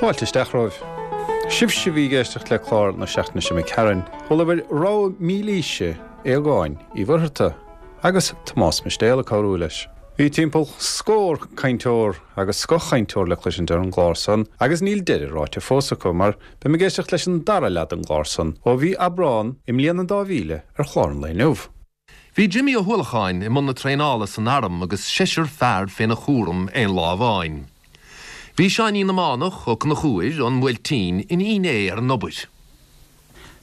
Fáilte isteach romhaibh. Sibhse a bhí ag éisteacht le clár na seachtaine seo imigh tharainn, chualabhair rogha mílaoise Aogáin Uí Mhuircheartaigh agus Tomás Mistéal ag cabhrú leis. Bhí timpeall scór cainteoir agus scothchainteoir le cloisint ar an gclár san agus níl deireadh ráite fós acu mar beim ag éisteacht leis an dara leath den gclár san ó mhí Aibreán i mbliain an 2000 ar chlár an lae inniu. Bhí Jimmy Ó hUallacháin i mbun na traenála san arm agus seisear fear féna chúram aon lá amháin. Bhí Seáinín na Mánach Ó Conchúir ón mBuailtín ina fhinné ar an obair.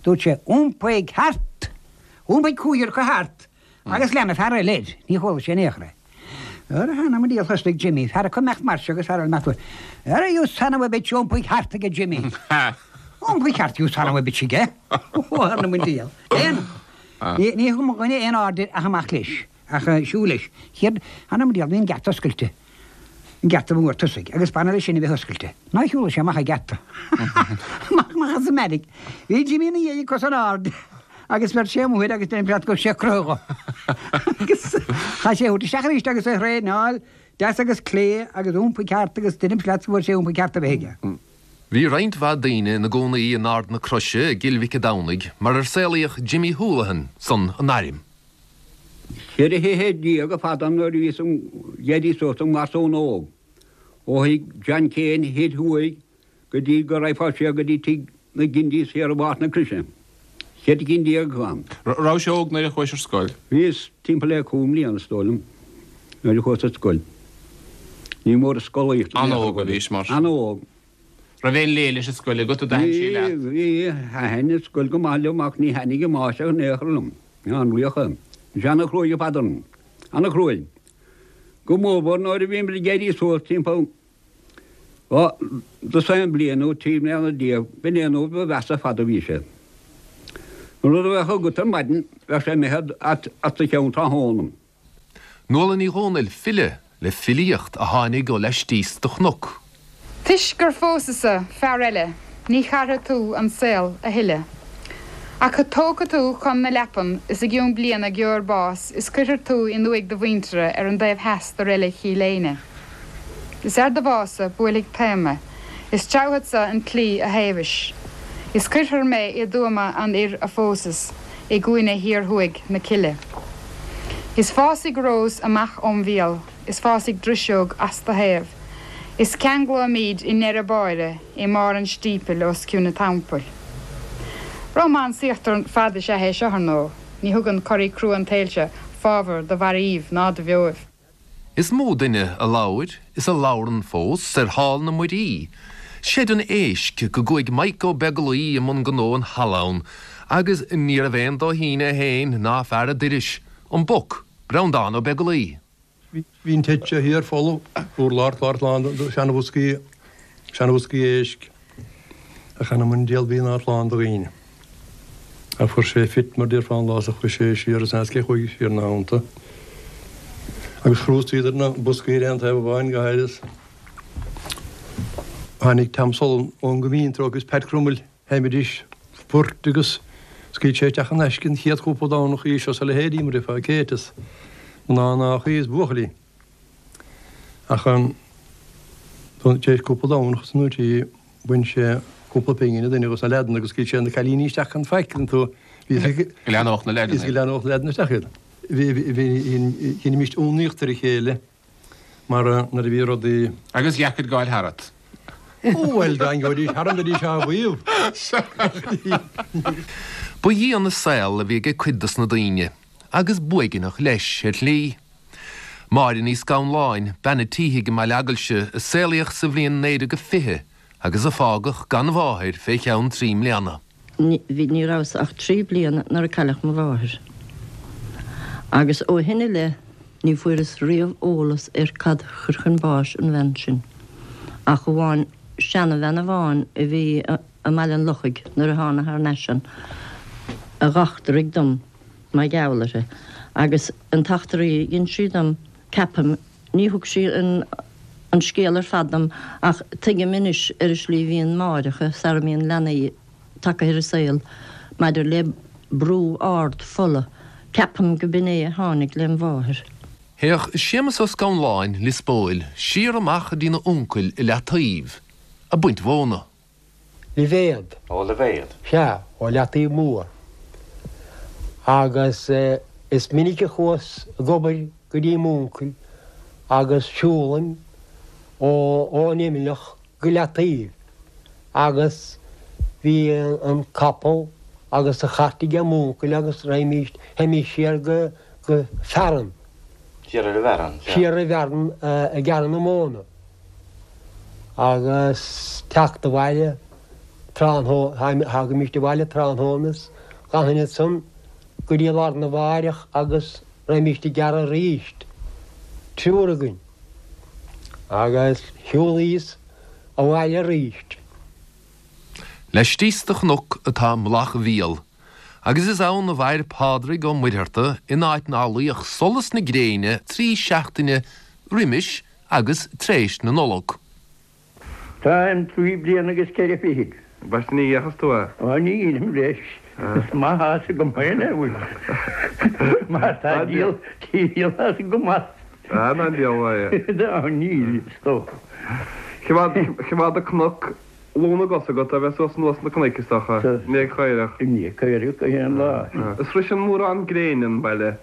Dúirt sé, Iompaigh thart! Iompaigh cúigear acu thart agus lean an fear eile air. Ní chuala sé in aon chor é. Ara th'anam 'on diabhal thosnaigh Jimmy, fear acu imeacht mar seo agus fear eile imeacht uaidh. Ara you son of a bitch, iompaigh thart aige Jimmy. Iompaigh thart you son of a bitch aige. Ó th'anam 'on diabhal. Aon. Ní thug mo dhuine aon aird air ach amach leis, ach siúl leis. Chéad, th'anam 'on diabhal, bhí an geata oscailte, an geata mhór tosaigh, agus b'annamh leis sin a bheith oscailte. Ná shiúladh sé amach an geata. Amach, amach as an mbeairic. Bhí Jimmy ina dhiaidh ag cos in airde agus bheir sé amuigh air agus deirim leat go raibh sé ag croitheadh dho. Agus chaith sé a thabhairt isteach arís agus é a thraenáil deas agus clé agus iompaigh thart agus deirim leat go bhfuair sé iompaigh thart a bheith aige. Bhí roinnt mhaith daoine ina gcónaí in Ard na Croise i gCill Mhic a' Domhnaigh mar ar saolaíodh Jimmy Houlihan san an airm. 14 thithe ar fad ann nuair a bhíos ag éirí suas i ngarsún óg, ó thigh John Kane thoir thuaidh go dtí go raghfá siar go dtí tigh na gCindys thiar i bPáirc na Croise. 14 cinn acu ann. Rabhais óg nuair a chuais ar scoil? Bhíos timpeall le cúig mbliana is dóigh liom nuair a chuas ar scoil. Ní mór an scolaíocht a bhí An-óg a bhís mar sin. An-óg. Raibh aon léi leis an scoil agat a d'aithin sí leat? Bhí, bhí. Thaitin an scoil go maith liom ach ní thaitnigh an máistear in aon chor liom. An-laoch é. Bhí sé an-chruaidh ar fad orainn. An-chruaidh. Go mórmhór nuair a bhíomar ag éirí suas timpeall Dhá dosaen bliain nó 13 mbliana, b'in é an uair ba mheasa ar fad a bhí sé. An rud a bheadh agat ar maidin, bheadh sé imithe as do cheann tráthnóna. Nuala Ní Dhomhnaill, file le filíocht a tháinig ó laistíos de chnoc. Toisc gur phósas-sa fear eile ní chaithfidh tú an saol a thuilleadh. Ach tógfaidh tú chun na leapan is i gcionn bliana gheobhair bás is cuirfear tú in uaigh do mhuintire ar an dtaobh theas de reilig Chill Éinne. Is ar do bhás-sa buailfidh taom mé, is treabhfadsa an tslí a thaobhais, is cuirfear mé i dtuama an fhir a phósas i gcúinne thiar thuaidh na cille. Is fásfaidh rós amach óm mhíol, is fásfaidh driseog as do thaobh, is ceanglóimíd i ndeireadh báire i mbarr an stípil os cionn an teampaill. Rómánsaíocht ar fad is ea é seo, ar ndóigh. Ní thugann coraí crua an tsaoil seo fábhar do mhairbh ná do bheoibh. Is mó duine a labhair, is a labhrann fós, ar Hall na Muirí, seid an éisc, go gcuaigh Mike Ó Beaglaoi i mbun gnó an halla ann, agus níorbh aon dóithín é féin ná fear a doiris, an Boc, Breandán Ó Beaglaoi. Bhí an teach seo thiar folamh, urlár clár lán de sheanbhoscaí, seanbhoscaí éisc, ach th'anam 'on diabhal bhí an áit lán de dhaoine. Ach fuair sé fit mar déarfá an lá is a chuaigh sé siar is n'fheadar cé chuaigh siar ina theannta. Agus chrústaíodar na boscaí ar aon taobh amháin go háirithe is tháinig Tom Sullivan ón gCoimín treo agus Pat Crummell sheinnimidís poirt agus scaoil sé isteach in aisce an chéad chúpla Domhnach í seo is a leithéidí mar déarfá Kate is mná mnáchaí is buachaillí. Ach tar éis cúpla Domhnach is nó trí bhain sé cúpla pingin an duine dos na leaideanna agus scaoil sé na cailíní isteach gan faic an tú Bhí Go leathnódh na leaideanna. Go leathnódh na leaideanna isteach iad. Bhí bhí dheinimíst ionadaíocht ar a chéile mar nuair a bhí rudaí. Agus dheacair gabháil tharat. Ó bhuel dá ngabhaidís tharam bheidís á mhaíomh. Ba dhian an saol a bhí ag cuid dos na daoine. agus b'uaigneach leis, ar shlí. Máire Ní Scanláin, bean a títhigh i mBaile Eagailse, a saolaíodh sa bhliain 1920 agus a fágadh gan mháthair fé cheann trí mbliana. Bhí, ní rabhas ach trí bliana nuair a cailleadh mo mháthair. Agus ó shin i leith ní fuaireas riamh eolas ar cad chuir chun báis an bhean sin, ach amháin seanabhean amháin a bhí i mBaile an Lochaigh nuair a thána thar n-ais ann, a dh'eachtraigh dom. mar gheall uirthi, agus an t-eachtraí a dhein sí dom. Ceapaim, ní thug sí an an scéal ar fad dom ach tuigim anois ar an slí a bhíonn máithreacha sara mbíonn leanaí tagtha ar an saol maidir le brú ard fola. Ceapaim go b'in é a tháinig lem mháthair. Théadh Séamus Ó Scanláin, Lios Póil, siar amach go dtína uncail i Leataoibh, ag baint mhóna. Libhéad. Ó Libhéad. Sea, ó Leataoibh Mór. Agus is minic a chuas ag obair go dtí m'uncail agus siúlaim ó ón Imleach go Leataoibh agus bhí an capall agus an chairt aige m'uncail agus raghaimís, théimís siar go, go Fearann. Siar ar an bhFearann, sea. Siar ar an bhFearann ag gearradh na móna. Agus teacht abhaile tráthnóna, thagaimíst abhaile tráthnóna is d'fhanfainn ansan go dtí lá arna mháireach agus raghaimíst ag gearradh aríst, triúr againn, agus shiúlaíos abhaile aríst. Laistíos de chnoc atá Mullach Mhíol, agus is ann a mhair Pádraig Ó Muircheartaigh in áit ná luíodh solas na gréine 3 seachtaine roimis agus tréis na Nollag. Táim 3 bliana agus 4 fichid. B'ait ní dheachas tú é. Ó ní dheinim leis. Is maith a's agam féin é bhfuil. Mar tá díol díol as go maith. Ah ná díol é. Á níl is dócha. Choimeád an cnoc lú na gcos agat a bheith suas anuas na cnoic is dócha. I ndiaidh caorach. I ndiaidh caorach gach aon lá. Is sroiseann mórán gréine an baile.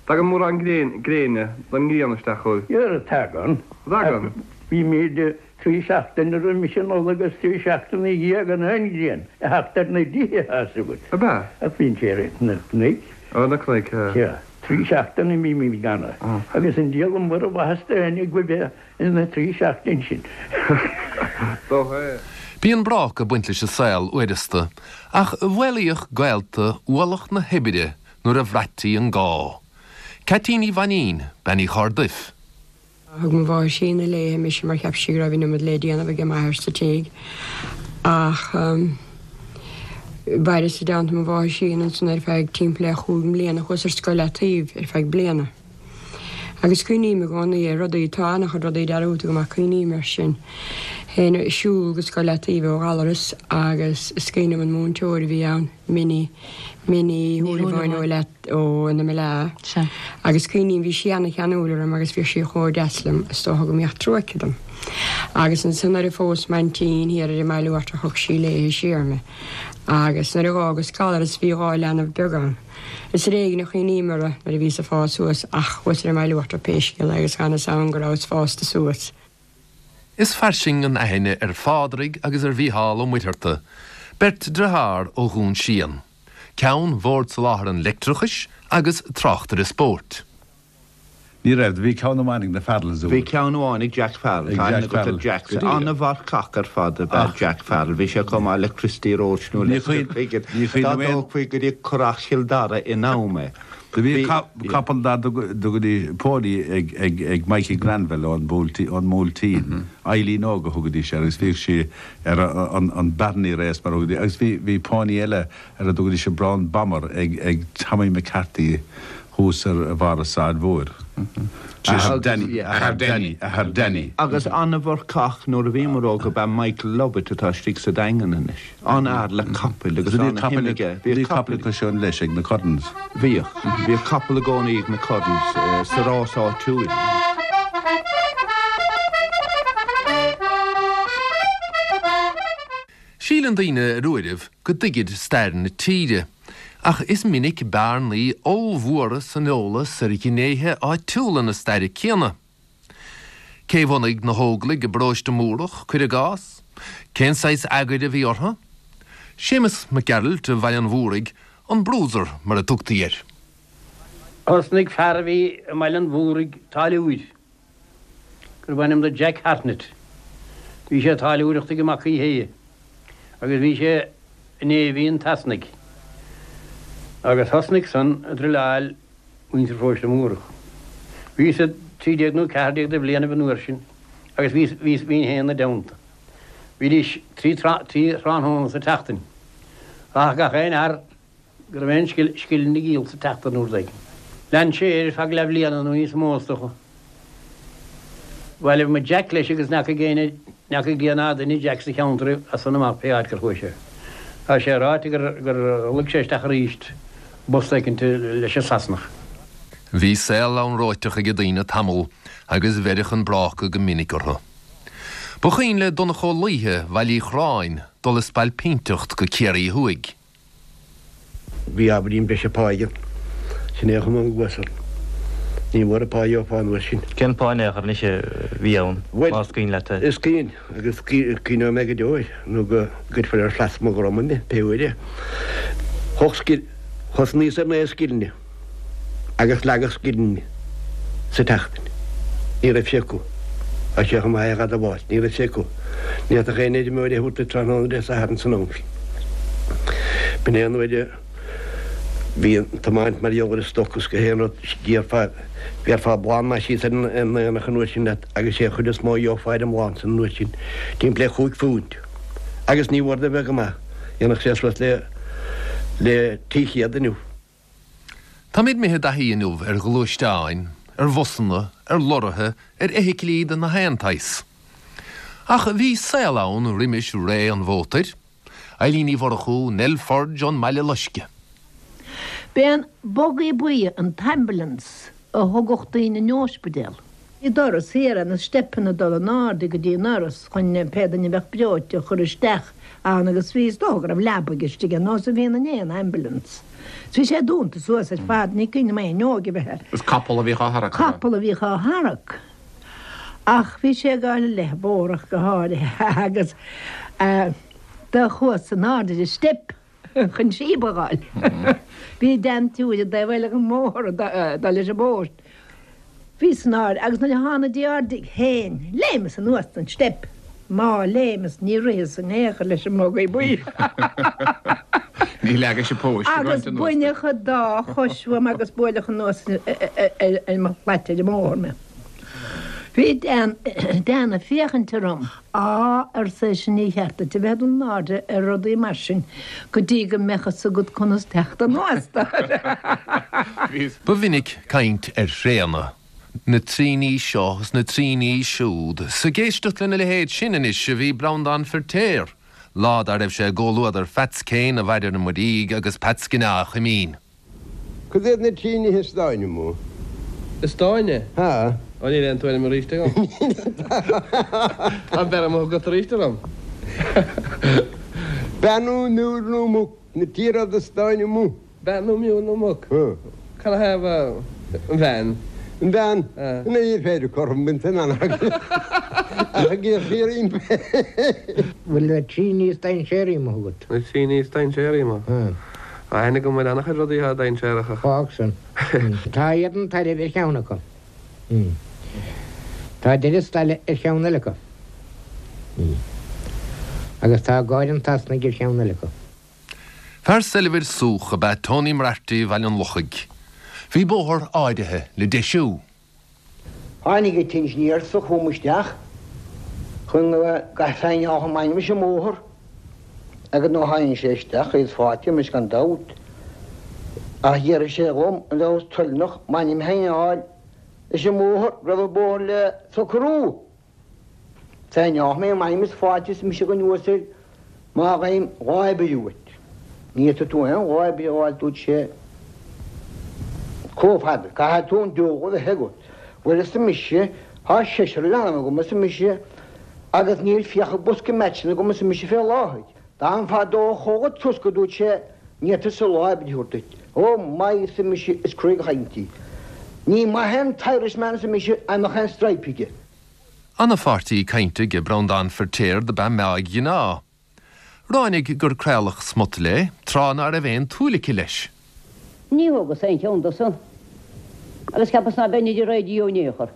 Tagann mórán gréine don ngrian isteach chugaibh. Dhera, tagann. Tagann. Bímid 3 seachtaine roimis an Nollaig agus 3 seachtaine ina dhiaidh gan aon ghrian ag theacht ar na dtithe, tá 'fhios agat. Ab ea? Ach bíonn sé ar na cnoic. Ar na cnoic, ea. Sea. 3 seachtaine bímid gan é. Agus an diabhal mura mhaitheas d'éinne go bheith ina 3 seachtain sin. Dócha é. Bíonn brác ag baint leis an saol uaireasta, ach mhaolaíodh gaolta ualach na hoibre nuair a bhraití an gá. Ceaití Ní Mhainín, Bean Uí Chorrduif. Thug mo mháthair sína léithe mise mar cheap sí go raibh an iomad le déanamh age m'athair sa tigh ach mhaireas i dteannta mo mháthar sína ansan ar feadh timpeall le chúig mbliana. Chuas ar scoil Leataoibh ar feadh bliana agus cuimhním i gcónaí ar rudaí, tá an-chuid rudaí dearúdta agam ach cuimhním air sin. Théinn ag siúl go scoil Leataoibh ó Ghallaras agus is cuimhin liom an múinteoir a bhí ann, Minnie, Minnie Ní Shúilleabháin ó Leat ó na Meala. Sea. Agus cuimhním, bhí sí ana-cheanúil orm agus bhíodh sí chomh deas liom, is dócha go mbíodh trua aici dom. Agus ansan nuair a phós m'aintín thiar ar an mBaile Uachtarach thug sí léithe siar mé. Agus nuair a dh'fhágas Gallaras bhí 2 leanbh beag ann. Is ar éigin a chuimhním orthu nuair a bhíos ag fás suas ach chuas ar an mBaile Uachtarach pé scéal é agus chan fhios a'm go rabhas fásta suas. Is fairsing an aithne ar Phádraig agus ar Mhícheál Ó Muircheartaigh, beirt driothár ó Dhún Síon, ceann Bhord Soláthair an Leictreachais agus tráchtaire spóirt. Ní raibh. Do bhí ceann amháin ag na Farrells uair. Bhí ceann amháin ag Jack Farrell. Ag Tá aithne Jack agat ar Farrell. Jack. Go díreach. An-mharcach ar fad ab ea Jack Farrell. Bhí sé chomh maith le Christy Roche nó Ní Lester chuimhin, Piggott. ní Dá chuimhin liom aon. dtógfaí go dtí Currach Chill Dara in am é. Do bhí Bhí, capall dá dtugaidís pony ag ag ag Mikey Granville ón Bhuailtín ón mBuailtín, Eileen Óg a thugaidís air agus bhíodh sí ar an an Barney Race mar a thugaidís agus bhí bhí pony eile ar a dtugaidís an Brown Bomber ag ag Tommy McCarthy thuas ar bharr an tSráid Mhóir. Athair Danny, athair Danny, athair Danny. Agus an-mharcach nuair a bhíomar óg ab ea Michael Lovett atá istigh sa Daingean anois. An-fhear le capaill agus an-shuim aige. Bhí capall acu sin leis ag na Currans. Bhíodh. Bhíodh capall i gcónaí ag na Currans sa rás áitiúil. Síleann daoine ar uairibh go dtuigid stair na tíre, ach is minic bearnaí ollmhóra san eolas ar ghnéithe áitiúla na staire céanna. Cé bhunaigh na hÓglaigh i bParóiste Múrach, cuir i gcás? Cén saghas eagair a bhí orthu? Séamus Mac Gearailt ó Bhaile an Mhúraigh, an Bruiser mar a tugtaí air. Thosnaigh fear a bhí i mBaile an Mhúraigh táilliúir, gurbh ainm do Jack Hartnett. Bhí sé ag táilliúireacht ag Mac Uí Shéaghdha agus bhí sé i Navy an tSasanaigh agus thosnaigh san ag druileáil muintir Pharóiste Múrach. Bhíos 13 nó 14 de bhlianaibh an uair sin agus bhíos, bhíos, bhínn féin 'na dteannta. Bhídís trí, trí thráthnóna sa tseachtain. Rachadh gach aon fhear go raibh aon scil, scil ina ghiall sa tseachtain uair éigin. Lean sé air ar feadh leathbhliana nó níos mó is dócha. Bhailigh muid Jack leis agus n'fheacaigh éinne, n'fheacaigh Dia ná duine Jack sa cheantar as san amach pé áit gur chuaigh sé. Tá sé ráite gur, gur luigh sé isteach arís i bpost éicint leis an Sasanach. Bhí saol anróiteach ag daoine tamall agus bheireadh an bráca go minic orthu. Ba chuimhin le Donncha Ó Laoithe Bhaile Uí Chorráin dul ag spailpínteacht go Ciarraí Thuaidh. Bhí ábhairín breise páighe ann. Sin é a chum an gcluas orm. Ní mór an pá a gheofá an uair sin. Cén pá in aon chor anois a bhí ann, Bhuel, más cuimhin leat é? is cuimhin, agus cuimhneoidh mé go deo air, nó go gcuirfear ar shlat mo dhroma mé, pé uair é. Thosnaíos ar naoi scilling. agus leagadh scilling sa tseachtain. Ní raibh sé acu. Tá sé chomh maith é dh'admháil, ní raibh sé acu. Ní fhéadfadh aon fheirmeoir é a thabhairt duit tráthnóna Dé Sathairn san am sin. B'in é an uair a bhí an tiomáint mar gheall ar an stoc is gach aon rud, d'iarrfá, bhéarfá blán maith síos ar an aonach an uair sin leat agus sé an chuid is mó a gheofá ar an mblán san an uair sin, timpeall le chúig phunt. Agus ní mhór do bheith go maith, dhéanfadh sé suas le le 300 inniu. Táimid imithe i dtaithí inniu ar ghluaisteáin, ar bhusanna, ar lorraithe, ar fheithiclí de na haon tsaghas. Ach bhí saol ann roimis ré an mhótair. Eilín Ní Mhurchú, Nell Forde ón mBaile Loiscthe. B'é an bugaí buí an t-ambulance a thugadh daoine 'on óispidéal. Bhí doras thiar ann is steipeanna ag dul in airde go dtí an ndoras chun pé duine a bheadh breoite a chur isteach ann agus bhí, is dócha go raibh leabaidh istigh ar nós a bhíonn in aon ambulance. Is bhí sé dúnta suas ar fad, ní cuimhin liom aon fhuinneog a bheith air. Is capall a bhíodh á tharrac, ab ea? Capall a bhíodh á tharrac. Ach bhí sé ag gabháil i leith an bhóthair go háirithe agus do chuas in airde ar an steip. chun síob a fháil. Bhí deantiúir i dtaobh eile den mbóthar ag dul leis an bpóst. Bhíos in airde agus nuair a thána dtí ár dtigh féin, léimeas anuas den steip. Má léimeas ní ritheas in aon chor leis an mbugaí buí. Ní leagais an póist ag Agus roinnt anuas. baineadh an dá chois uaim agus buaileadh anuas ar mo shlait ar an mbóthar mé. Bhí Dan ag féachaint orm. Á, arsa eisean, ní cheart duit a bheith ag dul in airde ar rudaí mar sin go dtí go mbeadh fhios agat conas teacht anuas. Ba mhinic caint ar thréanna, na traoiní seo is na traoiní siúd. 'S ag éisteacht lena leithéid sin anois a bhí Breandán Feirtéar, lá dá raibh sé i gcomhluadar Pheats Kane a Mhaide na Muirígh agus Peats Ginneá Chuimín. Cad iad na trí nithe is dáine amuigh? Is dáine? Há. Ó níl aon tuairim arís agam. Tá beir amuigh agat arís orm. Bean nó miúil nó muc, na trí rud is dáine amuigh. Bean nó miúil nó muc? Há. Cad a thaobh an bhean? An bhean? Ina dhiaidh féin cothrom bainte an anacair. Ach ag iarraidh roimpi. Bhfuil na trí ní is dainséaraí amuigh agat? Na trí ní is dainséaraí amuigh? Há. Tá aithne agam ar an-chuid rudaí atá dainséarach ach. Fág san. Tá éadan tairbh ar cheann acu. Tá deireadh staile ar cheann eile acu. Agus tá gáire an tSasanaigh ar cheann eile acu. Fear soilbhir súch ab ea Tony Moriarty Bhaile an Lochaigh. Bhí bóthar áirithe le deisiú. Tháinig an t-insinéir so chugam isteach chun go saighneáladh m'ainm leis an mbóthar agus nuair a tháinig sé isteach bhíos fáilte roimis gan dabht ach d'fhiafraigh sé dhom an rabhas toilneach m'ainm a shaighneáil leis an mbóthar go raibh an bóthar le socrú. Saighneálfaidh mé m'ainm is fáilte arsa mise don uasal má fhaighim lá oibre uait. Ní fhéadfaidh tú aon lá oibre a fháil dúirt sé chomh fada. Caithfidh tú an deabhadh a bheith agat. Bhuel arsa mise, tá seisear leanbh agam arsa mise agus níl fiacha bosca meaitseanna agam arsa mise fé láthair. Dá mfanfá i do chodladh trosc a dúirt sé ní fhéadfadsa lá oibre a thabhairt duit. Ó my arsa mise is cruaidh an chaint í. Ní maith é an t-Irishman arsa mise dá mbeadh aon stripe aige. Ana-pháirtí cainte ag Breandán Feirtéar do b'ea Meáig Ghinneá. Ráinig gur craoladh smut léi tráth ná raibh aon tsúil aici leis. Ní thógas aon cheann dó san agus cheapas ná beinn ar an raidió in aon chor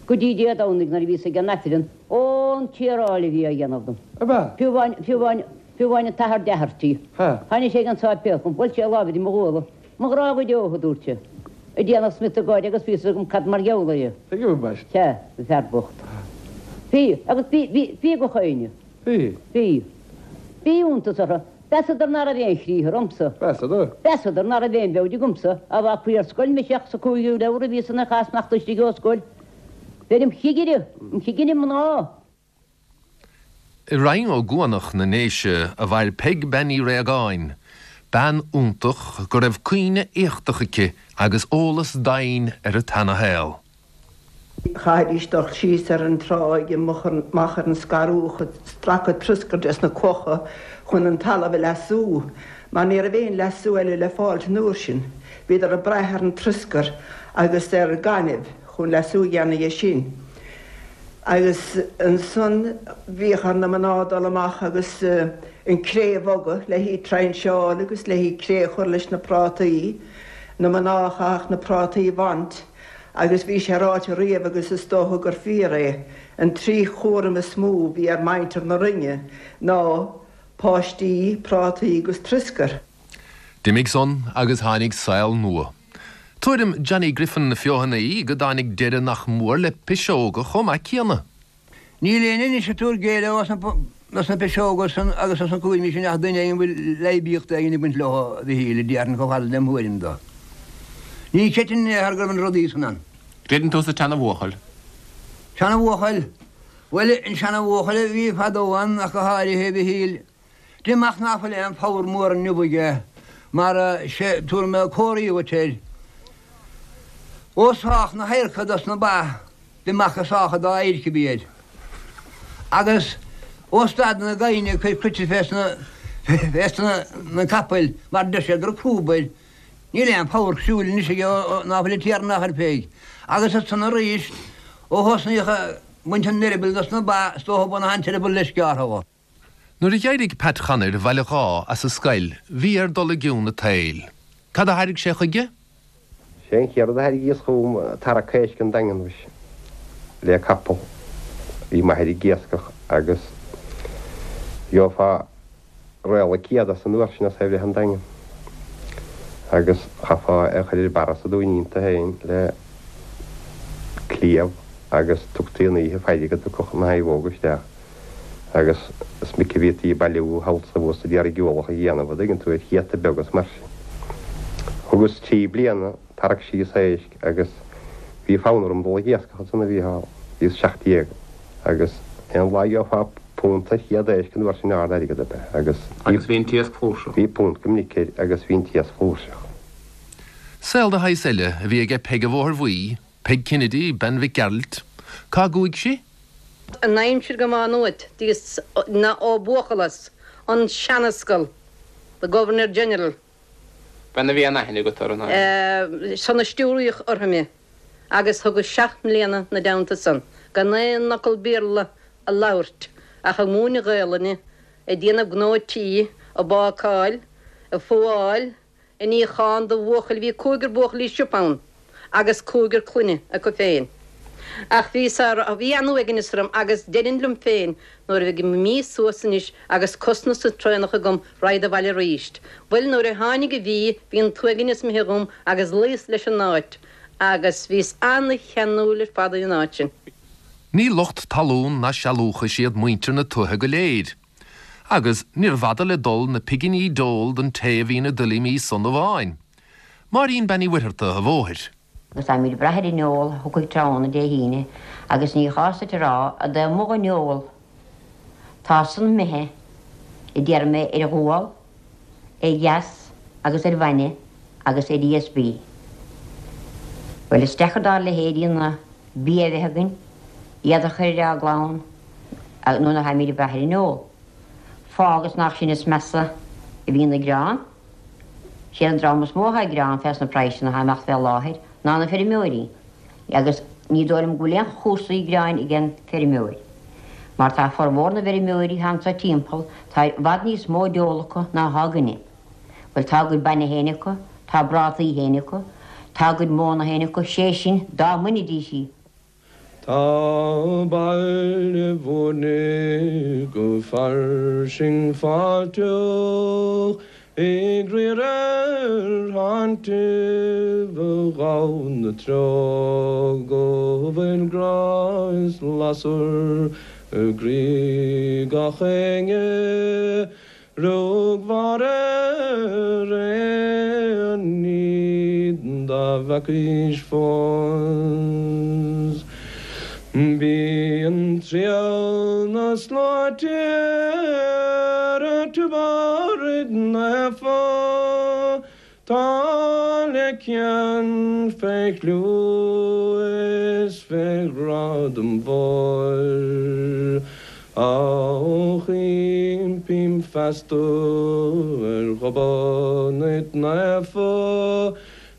go dtí Dé Domhnaigh nuair a bhíos ag an Aifreann. Ó, an tiaráil a bhí á dhéanamh dom. Ab ea? Fiú amháin, fiú amháin, fiú amháin an t-athair Doherty. Tháinig sé ag an sáipéal chugam, bhuail sé a lámh idir mo ghuala. Mo ghrá go deo, a dúirt sé. Ag déanamh smiotadh gáire agus bhí fhios agam cad mar gheall air. Tuigim ambaist. Sea, an fear bocht. Bhí, agus bhí, bhí, bhí gach éinne. Bhí. Bhí. Bhí iontas orthu. Mheasadar ná raibh aon chriathar ormsa. Mheasadar? Mheasadar ná raibh aon bheoid agamsa. Á bhfágfaí ar scoil mise ach sa cúigiú leabhar a bhíos ina chás imeacht istigh ó scoil. Bheinn im chigire, im chigire mná. I Rinn Ó gCuanach na nDéise a mhair Peig Bean Uí Réagáin, bean iontach go raibh cuimhne éachtach aici agus eolas doimhin ar an tseanashaol. Chaithfidís dul síos ar an tráigh amach ar an scarúch ag stracadh troscair des na clocha chun an talamh a leasú, mar ní raibh aon leasú eile le fáilt an uair sin. Bhíodar ag brath ar an troscar agus ar gaineamh chun leasú a dhéanamh dhe sin. Agus ansan bhíodh ar na mná dul amach agus an cré a bhogadh le hí trainseáil agus le hí cré a chur leis na prátaí, na mná a chaithfeadh na prátaí a bhaint agus bhí sé ráite riamh agus is dócha gur fíor é, an trí chúram is mó a bhí ar mhuintir na Rinne ná páistí, prátaí agus troscar. D'imigh san agus tháinig saol nua. Tuairim Johnny Griffin na Feothanaí go dtáinig deireadh nach mór le piseoga chomh maith céanna. Níl éinne anois ag tabhairt géilleadh dos na piseoga san agus dos na cúraimí sin ach duine éigin a bhfuil leidhbíocht éigin ag baint leo, a Mhichíl, a déarfainn chomh fada lem thuairim do. Ní chreidfinn in aon chor go raibh na rudaí san ann. Creideann tú sa tseana-bhuachaill? Seana-bhuachaill? Bhuel, an seana-bhuachaill a bhí fadó ann ach go háirithe, a Mhichíl. Deirim ach ná fuil aon phabhar mór inniu aige mar sé tabharfaidh mé comharthaí dhuit air. Ó sách na hadharca dos na ba d'imeacht go sách an dá adhairc a bhí air. Agus ó stad na gaibhne ag cur cruite fés na capaill mar deir siad go raibh crúb air. Níl aon phabhar siúil anois aige ná fuil an Tiarna á chur fé. Agus ansan arís ó thosnaíodh ag baint an eireabaill dos na ba is dócha baineadh an t-eireaball leis gearrtha dho. Nuair a d'éirigh Pat Chonair Bhaile Dháith as an scoil bhí air dul i gcionn an tsaoil. Cad a thairg sé chuige? Sé an chéad rud a thairgíos chugam tarrac éisc an Daingean mhuise, le capall. Bhí m'athair ag iascach agus gheofá réala céad as an uair sin as é bhreith an Daingean. Agus chaithfeá é a chur ar barra sa Dúinín iontu féin le cliabh agus tugtaí an oíche faire go dtiocfadh na naomhóga isteach. Agus is minic a bhítí ag bailiú thall 's abhus ag iarraidh ualach a dhéanamh, an dtuigeann tú, ar chéadta beaga is mar sin. Thugas 3 bliana tarrac síos éisc agus bhí fonn orm dul ag iascach ansan a Mhícheál, bhíos 17 agus aon lá gheofá punt ar chéad éisc an uair sin ard airgead ab ea agus Agus bhí an t-iasc flúirseach. Bhí punt go minic air agus bhí an t-iasc flúirseach. Saol de shaghas eile a bhí aige Peig an Bhóthair Bhuí, Peig Kennedy, bean Mhic Gearailt. Cá gcuaigh sí? An aimsir go Má Nuat bhíos ina óg-bhuachaill an seanascal, the Governor General. Bean a bhí an-aithne agat uirthi, an ea? San a stiúraíodh orthu mé agus thugas 7 mbliana 'na dteannta san gan aon fhocal Béarla a labhairt ach ag múineadh Gaelainne, ag déanamh gnó tí, ag bácáil, ag fuáil, ag níochán do bhuachaill bhí cúigear buachaillí siopa ann agus cúigear clainne acu féin. Ach bhí sár, bhí an-uaigneas orm agus deirinn liom féin nuair a bheidh mí suas anois agus cos na sa traonach agam raghad abhaile aríst. Bhuel nuair a tháinig an mhí bhí an t-uaigneas imithe dhom agus luíos leis an áit agus bhíos ana-cheanúil ar fad ar an áit sin. Ní lucht talún ná sealúchais iad muintir na tuaithe go léir. Agus níorbh fhada le dul na piginí d'ól don té a bhí ina dtuilleamaí san amháin. Máirín Bean Uí Mhuircheartaigh a' Bhóthair. Agus táimid ag brath ar an ól a thiocfaidh tráthnóna Dé hAoine agus ní chás duit a rá i dtaobh amuigh den ól. Tá san imithe, a déarfaidh mé, ar ghual, ar gheas agus ar bhainne agus ar ESB. Bhuel, is deacair dár leithéidí na bia a bheith againn, iad a chur ar ár gclann nuair a tháimid ag brath ar an ól. Fág is nach sinn is measa a bhíonn ag gearán. Siad an dream is mó atá ag gearán fés na praghsanna atá ag imeacht fé láthair ná na feirmeoirí agus ní dóigh liom go bhfuil aon chúrsaí gearáin ag an feirmeoir mar tá formhór na bhfeirmeoirí atá anso timpeall tá i bhfad níos mó d'ól acu ná atá againne. Bhuel tá a gcuid bainne féin acu, tá a bprátaí féin acu, tá a gcuid móna féin acu, sé sin dá mbainfidís í. Tá Baile Bhúirne go fairsing fáilteach ag riar ar thainntibh a ghabhann na treo go bhfuil grá is lasair i gcroí gach éinne. Rug Mháire ar aon ní dá bhfeacaís fós. Bíonn triall na sláinte ar Tiobraid Naofa. Tá le cion fé chlú is fé ghradam mhóir, Ach impím feasta ar Ghobnait Naofa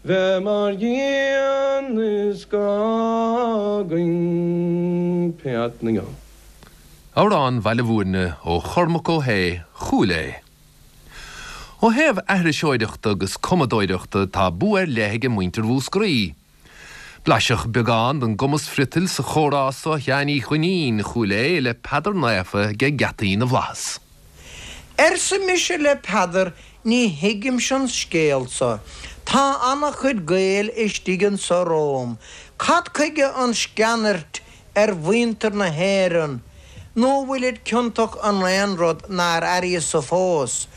bheith mar dhíon is gá againn peat na ngeall. Amhrán Bhaile Bhúirne ó Chormac Ó hAodha, Chúil Aodha. Ó thaobh aithriseoireachta agus cumadóireachta tá bua ar leith aige muintir Mhúscraí. Blaiseadh beagán den gcumas friotail sa chomhrá so Sheáin Uí Dhuinnín, Chúil Aodha, le Peadar Naofa aige Geataí na bhFlaitheas. Arsa mise le Peadar, ní thuigimse an scéal so. Tá ana-chuid Gael istigh anso romham. Cad chuige an sceanairt ar mhuintir na hÉireann, nó bhfuilid ciontach in aon rud nár airíos-sa fós?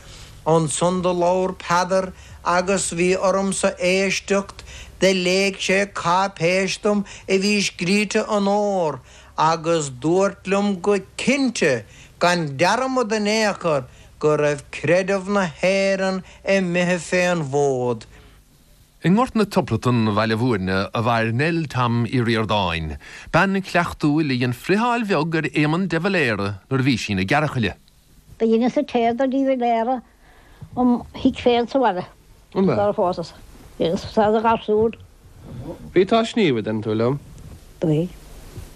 Ansan do labhair Peadar agus bhí ormsa éisteacht, do léigh sé cáipéis dom a bhí scríte in ór, agus dúirt liom go cinnte, gan dearmad in aon chor, go raibh creideamh na hÉireann imithe fén bhfód. I nGort na Tiobratan, Bhaile Bhúirne, a mhair Nell Tom Uí Ríordáin, bean chleachtúil a dhein friotháil bheag ar Éamonn de Valera nuair a bhí sí ina gearrchaile. Do dheineas an tae do de Valera im thigh féin sa bhaile sara phósas. Dheineas sa do gharsún. Bhí tú á sníomh, a deireann tú liom. Do bhí.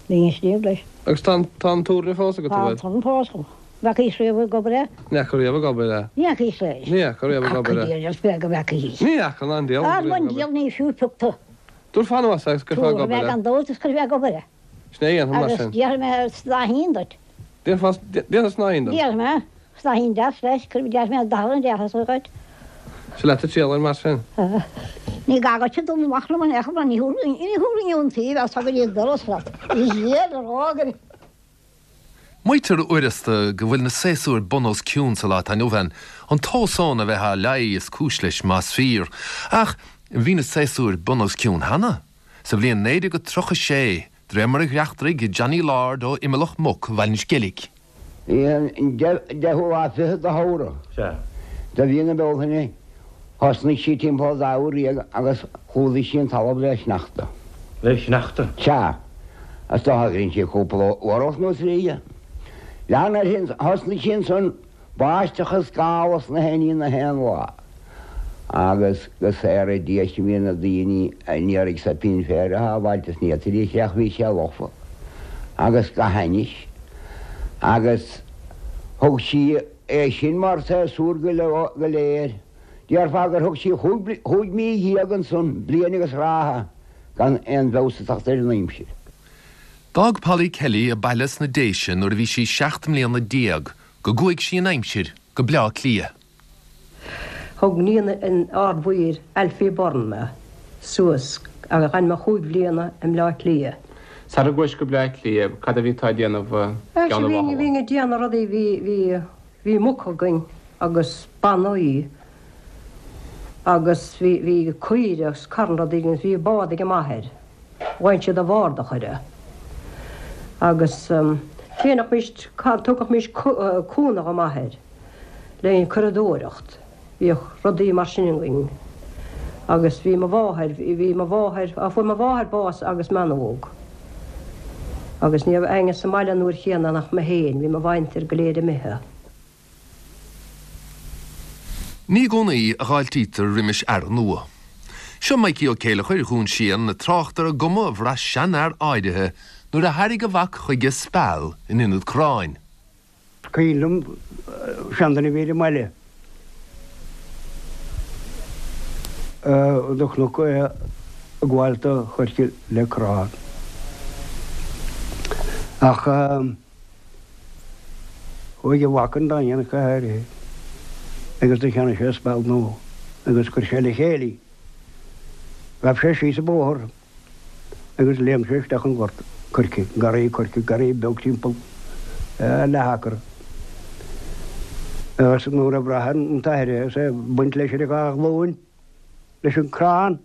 Bhínn ag sníomh leis. Agus tá an turn fós agat, an bhfuil? Tá an turn fós agam. Bhfeacaís riamh ag obair é? Ní fhaca riamh ag obair é. Ní fhacaís é. Ní fhaca riamh ag obair é. Cac an diabhal go bhfeacaís. Ní fhaca ná an diabhal riamh ag obair. An diabhal ní fiú pioc tú. Tabharfá anuas é agus cuirfeá ag obair é. Tabharfaidh mé gan dabht is cuirfidh mé ag obair é. Sin é a dhéanfaidh mar sin. Agus déarfaidh mé snáithín duit. Déarfá, déarfá snáithín dom. Déarfaidh mé snáithín deas leis, cuirfidh, déarfaidh mé dath an deas dhuit. Sea leat a triall air mar sin. Ní gá duit dul amach liom in aon chor mar ní thabharfainn iontaoibh as go dtí an doras leat. Is é a rá go. Maítear uaireasta go bhfuil na séasúir bun os cionn sa lá atá inniu ann, an t-ósón a bheith á leí is cúis leis más fíor. Ach bhí na séasúir bun os cionn cheana, sa bhliain 1936, de réir mar a dhreachtraigh Johnny Lord ó Imileach Muc Bhaile an Sceilg. Bhí an deichiú lá fichead de Feabhra de mhí na Bealtaine. Thosnaigh sí timpeall an dá uair dhéag agus chlúdaigh sí an talamh le sneachta. Le sneachta? Sea. Is dócha gur dhein sí cúpla uair nó trí. Lean uirthi, thosnaigh sí ansan báisteach is gála is na haon ní na haon lá. Agus go saora Dia sinn bhí na daoine a n-iarraidh soipín féir a shábháilt is ní fhéadfaidís é ach bhí sé lofa agus go hainnis. Agus thug sí. É sin mar séasúr go léir. Déarfá gur thug sí chúig mhí dhéag ansan, bliain agus ráithe, gan aon bhfeabhas ag teacht ar an aimsir. D'fhág Polly Kelly a baile sna Déise nuair a bhí sí 17 mbliana go gcuaigh sí in aimsir go Bleá Cliath. Thug níon an Ard-Mhaoir, Alfie Byrne, mé suas agus d'fhan mé chúig bhliana i mBleá Cliath. Sara gcuais go Bleá Cliath, cad a bhí tú a déanamh i gCeann an Bháthala? Bhínn ag déanamh rudaí, bhí, bhí, bhí muc againn agus bannaí agus bhí, bhí caoire agus carn rudaí againn agus bhí bád ag m'athair. Bhain siad an bhord a chur agus dhéanfaimis, tugaimís cúnamh do m'athair le an curadóireacht. Bhíodh rudaí mar sin againn agus bhí mo mháthair, bhí mo mháthair, á fuair mo mháthair bás agus mé an-óg agus ní raibh éinne sa mbaile an uair chéanna ach mé féin, bhí mo mhuintir go léir imithe. Ní i gcónaí a dh'fháiltítear roimis earra nua. Seo Mikey Ó Céileachair Dhún Síon ag trácht ar an gcuma a bhraith seanfhear áirithe nuair a thairg a mhac chuige speal in ionad corráin. Is cuimhin liom seanduine a bhí ar an mbaile do chonac é ag gabháil do choirce le corrán. Ach chuaigh a mhac 'on Daingean go háirithe agus do cheannaigh sé speal nua agus chuir sé le chéile í. Ghabh sé síos an bóthar agus léim sé isteach an gort coirce, garraí coirce, garraí beag timpeall leath acra. Agus nuair a bhraith an t-athair é is é ag baint leis ar a dhá ghlúin leis an crann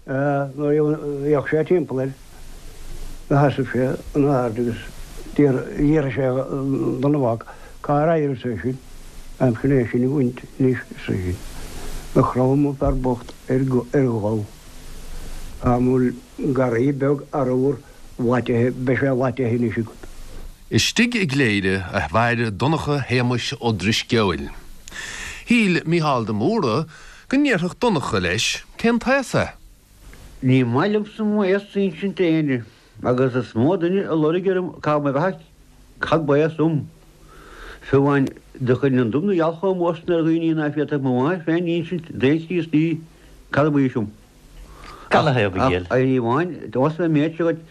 nuair a d'fhéach sé timpeall air do sheasaimh sé in airde agus d'fhiafraigh sé den mhac cár éirigh sé sin, aimsir é sin a bhaint anois arsa sin. Do chrom an fear bocht ar ghol. Dá mbeadh garraí beag arbhair Laitithe, beidh sé laitithe anois agat. Istigh i gCléire a mhair Donncha Shéamuis Ó Drisceoil. Shíl Mícheál de Mórdha go ndéarfadh Donncha leis cén t-aos é. Ní maith liomsa m'aos a insint d'éinne, agus is mó duine a loirg orm cá mo bheatha cad b'aos dom. Fiú amháin do chuir an dubh na gheal chomh mór san ar dhaoine ná féadfadh mo mháthair féin insint d'aon Chríostaí cad ab aois dom. Ach ní amháin, ós mé méid seo dhuit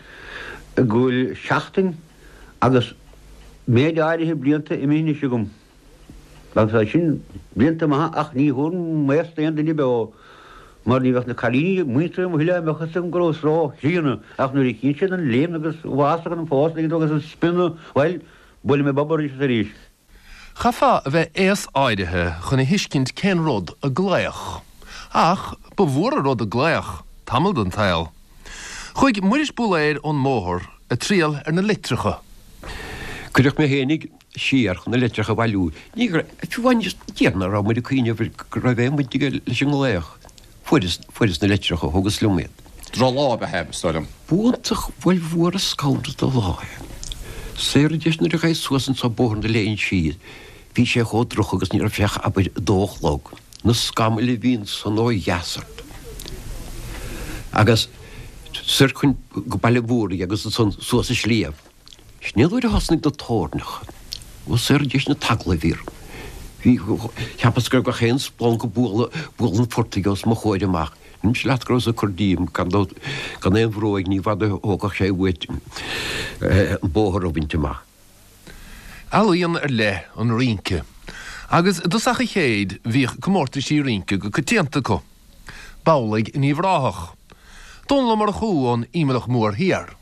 go bhfuil seachtain agus méid áirithe blianta imithe anois agam. Agus tá sin blianta maithe ach ní thabharfainn m'aos d'aon duine beo mar ní bheadh na cailíní muinteartha mo thuilleadh a mbeadh fhios agam go rabhas ró-chríonna ach nuair a chíonn siad an léim agus an bhfásach an fás agus an spionnadh, bhuel, buailfidh mé bob arís is arís. Chaithfeá a bheith aos áirithe chun a thuiscint cén rud a glaoch. Ach ba mhór an rud a glaoch, tamall den tsaol. Chuaigh Muiris Búlaeir ón mBóthar ag triall ar na litreacha. Cuireadh mé fhéinig siar chun na litreacha a bhailiú. Ní raibh, fiú amháin, déarfainn nach raibh muid ag cuimhneamh go raibh aon bhaint aige leis an nglaoch. Fuaireas, fuaireas na litreacha, thugas liom iad. Droch-lá ab ea é, is dóigh liom. B'iontach, bhuel b'fhuar an scanradh de lá é. Saor an deis nuair a ghaibh suas anso Bóthar na Léinsí, bhí sé chomh droch agus ní raibh sé ach abair a dó a chlog. Na scamaill a bhí ansan ó dheas ort. Agus soir chun go Baile Mhúraigh agus ansan suas an sliabh. Sin é an uair a thosnaigh na toirneacha. Ó saor an deis na teaglaimh orm. Bhí, cheapas go raibh gach aon splanc ag bualadh, bualadh an phortaigh os mo chomhair amach. Deirimse leat go rabhas ag cur díom, gan dabht, gan aon bhróig, ní bhfada a thógfadh sé uait an bóthar a bhaint amach. Ealaíon ar leith an rince, agus i dtosach an chéid bhíodh comórtaisí rince go coitianta acu. B'amhlaidh in Uíbh Ráthach. Dónall Ó Murchú ón Ímealach Mór Thiar.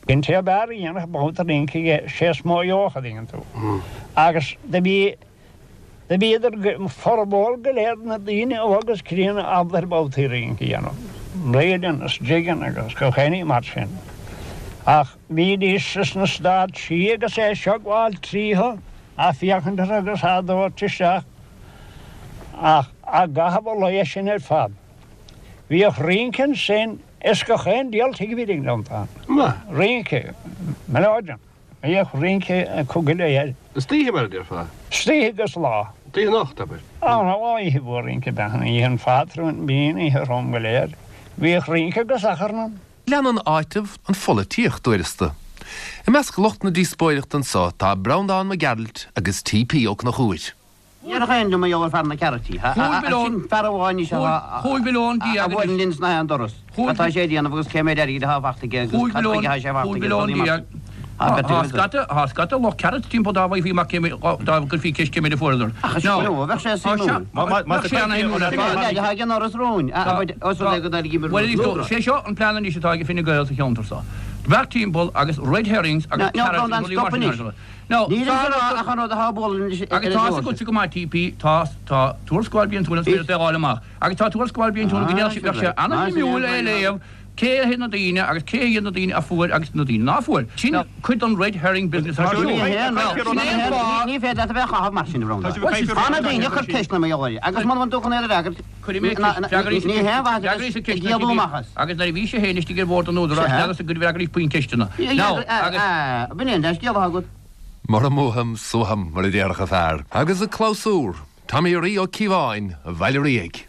An té ab fhearr a dhéanfadh babhta rince aige, sé is mó a gheobhadh, a dtuigeann tú. Agus do bhí, do bhíodar, formhór go léir na daoine óg is críonna ábalta ar babhtaí rince a dhéanamh, reelin' is jiggin' agus gach aon ní mar sin. Ach bhídís sna stáitsí agus é seo ag gabháil tríothu, á féachaint orthu agus á dtabhairt isteach, ach á gcaitheamh a lae sin ar fad. Bhíodh rince ansin is gach aon diabhal tigh a bhí ag an. Rince, melodeon. Bhíodh rince acu go léir. Istoíche mar a déarfá? Istoíche agus lá. Oíche anocht, abair. Á, oíche mhór rince ab ea an oíche an phátrúin, bhí an oíche throm go léir. Bhíodh rince agus achrann ann. Leanann áiteamh an pholaitíocht uaireasta. I measc lucht na díospóireachta anso tá Breandán Mac Gearailt agus T.P. Ó Conchúir. Ní raibh aon liom a gheall ar fear na cearraití. Sin fear amháin is ea a bhuaileann linn sna haon doras. Cad tá sé a dhéanamh agus cé méid airgid atá fachta aige agus cad chuige atá sé fachta aige rudaí mar sin. Tá scata, tá scata lucht carrots timpeall dá bhfaighfí amach cé méid, dá gcuirfí ceist cé méid a fuaireadar. Ach is ea, bheadh sé suimiúil. Bheadh sé ana-shuimiúil ar fad. Leaid atá ag an doras romhainn, os rud é go dtairgí Bhuel, is é seo an plean anois atá ag Fine Gael sa cheantar seo. Beart timpeall agus red herrings agus carrots agus rudaí mar sin. Now, Níl ag rá ach an rud atá ag bualadh anois ar Agus an tá leabhar agatsa go maith, TP, tá, tá tuarascáil bliantúil an Spidéil le fáil amach. Agus tá tuarascáil bliantúil go ndéarfadh bheadh sé an-shuimiúil é a léamh, cé hiad na daoine agus cé hiad na daoine a fuair agus na daoine ná fuair. Sin cuid den red herring business ar siúl. Ní hé, no. Sin é an fáth. Ní féidir leat a bheith á chaitheamh mar sin, a Bhreandáin. Tá na daoine ag cur ceisteanna mar gheall air agus muna bhfuil tú chun iad a fhreagairt, Cuirfidh mé ceist, freagraí ní hé an mhaith a bheith ag éalú amach as. Agus nuair a bhí sé féin istigh ar bhord an Údaráis, n'fheadarsa go bhfreagraís puinn ceisteanna. Now, agus. B'in é an dea-scéal atá agat. Mura mbuaim, suaithim, mar a déarfadh an fear. Agus an clabhsúr, Tommy Rí Ó Cíobháin, Bhaile Ríog.